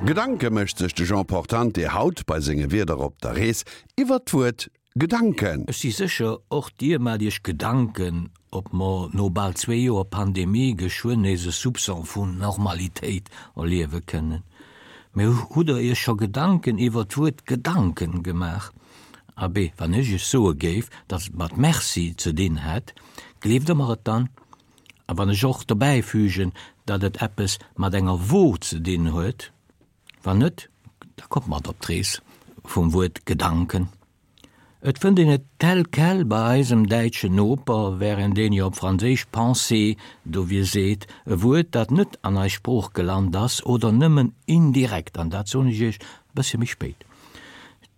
Gedanke mécht sech de Jean Portante haut bei senge Wierder op der Rees iwwert d'Wuert Gedanken. Ech si sécher, och Dir maacht Iech Gedanken, ob mer no bal zwee Joer Pandemie geschwënn nees e Soupçon vun Normalitéit erliewe kënnen. Mee hutt Der Iech scho Gedanken iwwer d'Wuert Gedanken gemaach? Abee, wann ech Iech soe géif, datt et mat Merci ze dinn hätt, gleeft Der mer et dann? A wann ech och dobäifügen, datt et eppes mat enger Wo ze dinn huet? Wann net, da kommt mat op d'Rees vum Wuert Gedanken. Et fënnt een et tel quel bei eisem däitschen Noper, wärend een jo op Franséisch pensée dowir seet, e Wuert, dat net an eis Sprooch gelant ass oder nëmmen indirekt, an dat soen ech iech e bëssche méi spéit.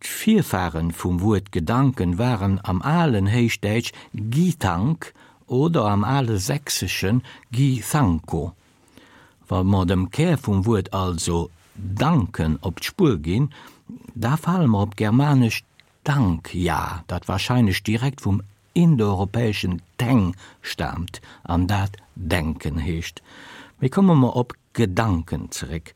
D'Virfaren vum Wuert Gedanken waren am alen Héichdäitsch gitank oder am ale Sächseschen githanko. Wa mer dem Kär vum Wuert also danken op d'Spuer ginn, da fale mer op d'germanescht dankja, dat warscheinlech direkt vum indoeuropäeschen teng staamt an dat denken heescht. Mee komme mer op Gedanken zeréck.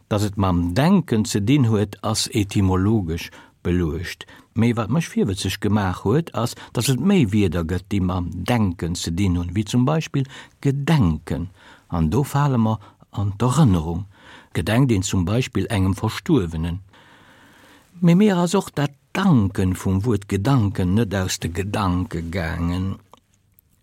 Datt et mam Denken ze dinn huet, ass etymologesch beluecht. Mee wat mech virwëtzeg gemaach huet, ass, datt et méi Wierder gëtt, déi mam Denken ze dinn hunn, wéi zum Beispill gedenken. An do fale mer an d'Erënnerung. Gedenkt een zum Beispill engem Verstuerwenen. Mee mir ass och dat Danken vum Wuert Gedanken net aus de Gedanke gaangen.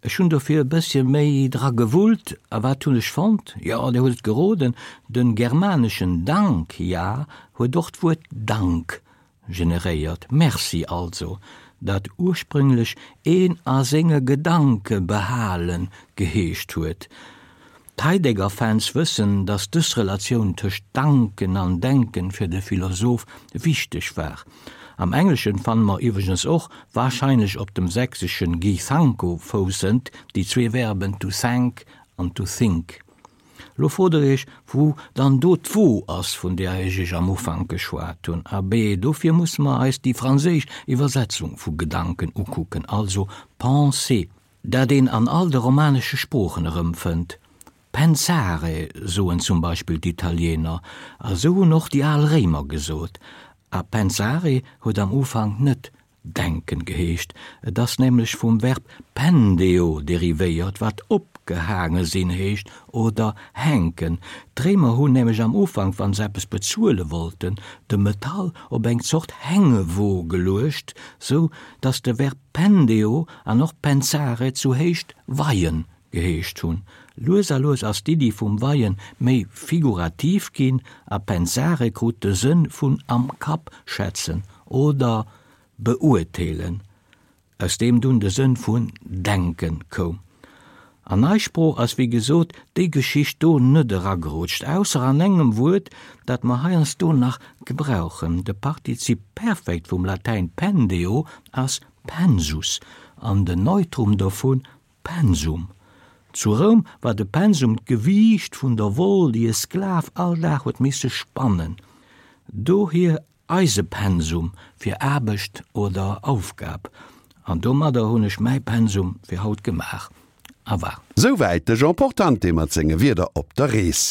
Ech hunn dofir e bëssche méi dra gewullt, a wat hunn ech fonnt? Jo, Dir hutt et geroden, den germaneschen Dank, ja, huet och d'Wuert Dank generéiert, Merci also, dat ursprünglech een a senge Gedanke behalen geheescht huet. D'Heidegger-Fans wëssen, datt dës Relatioun tëscht Danken an Denken fir de Philosoph wichteg war. Am Engleschen fanne mer iwwregens och, warscheinlech op dem sächseschen Githanko foussend, déi zwee Verben to thank an to think. Lo frot der iech, wou dann do d'Wo ass, vun där ech iech am Ufank geschwat hunn. Abee, dofir musse mer eis déi franséisch Iwwersetzung vu Gedanken ukucken, also pensée. Dat een an all de romanesche Sproochen erëmfënnt. Pensare soen zum Beispill d'Italiener, a sou hunn och déi al Réimer gesot. A pensare huet am Ufank net denken geheescht, et ass nämlech vum Verb pendeo derivéiert, wat opgehaange sinn heescht oder hänken. D'Réimer hunn nämlech am Ufank, wa se eppes bezuele wollten, de Metall op eng Zort Hängewo geluecht, sou datt de Verb Pendeo an och pensare zu Héicht weien geheescht hunn. Lues a lues ass d'Iddi vum Weien méi figurativ ginn a pensare krut de Sënn vun am Kapp schätzen oder beurteelen, aus deem dunn de Sënn vun denken koum. An eis Sprooch ass wéi gesot déi Geschicht do net eragerutscht, ausser an engem Wuert, dat mer heiansdo nach gebrauchen. De Partizip Perfekt vum Latäin pendeo ass pensus an den Neutrum dovu pensum. Zu Roum war de Pensum d'Gewiicht vun der Woll, déi e Sklav all Dag huet misse spannen. Dohier Eise Pensum fir Aarbecht oder Aufgab. An domadder hunn ech mäi Pensum fir haut gemaach. A war. Souwäit de Jean Portante mat senge Wierder op der Rees.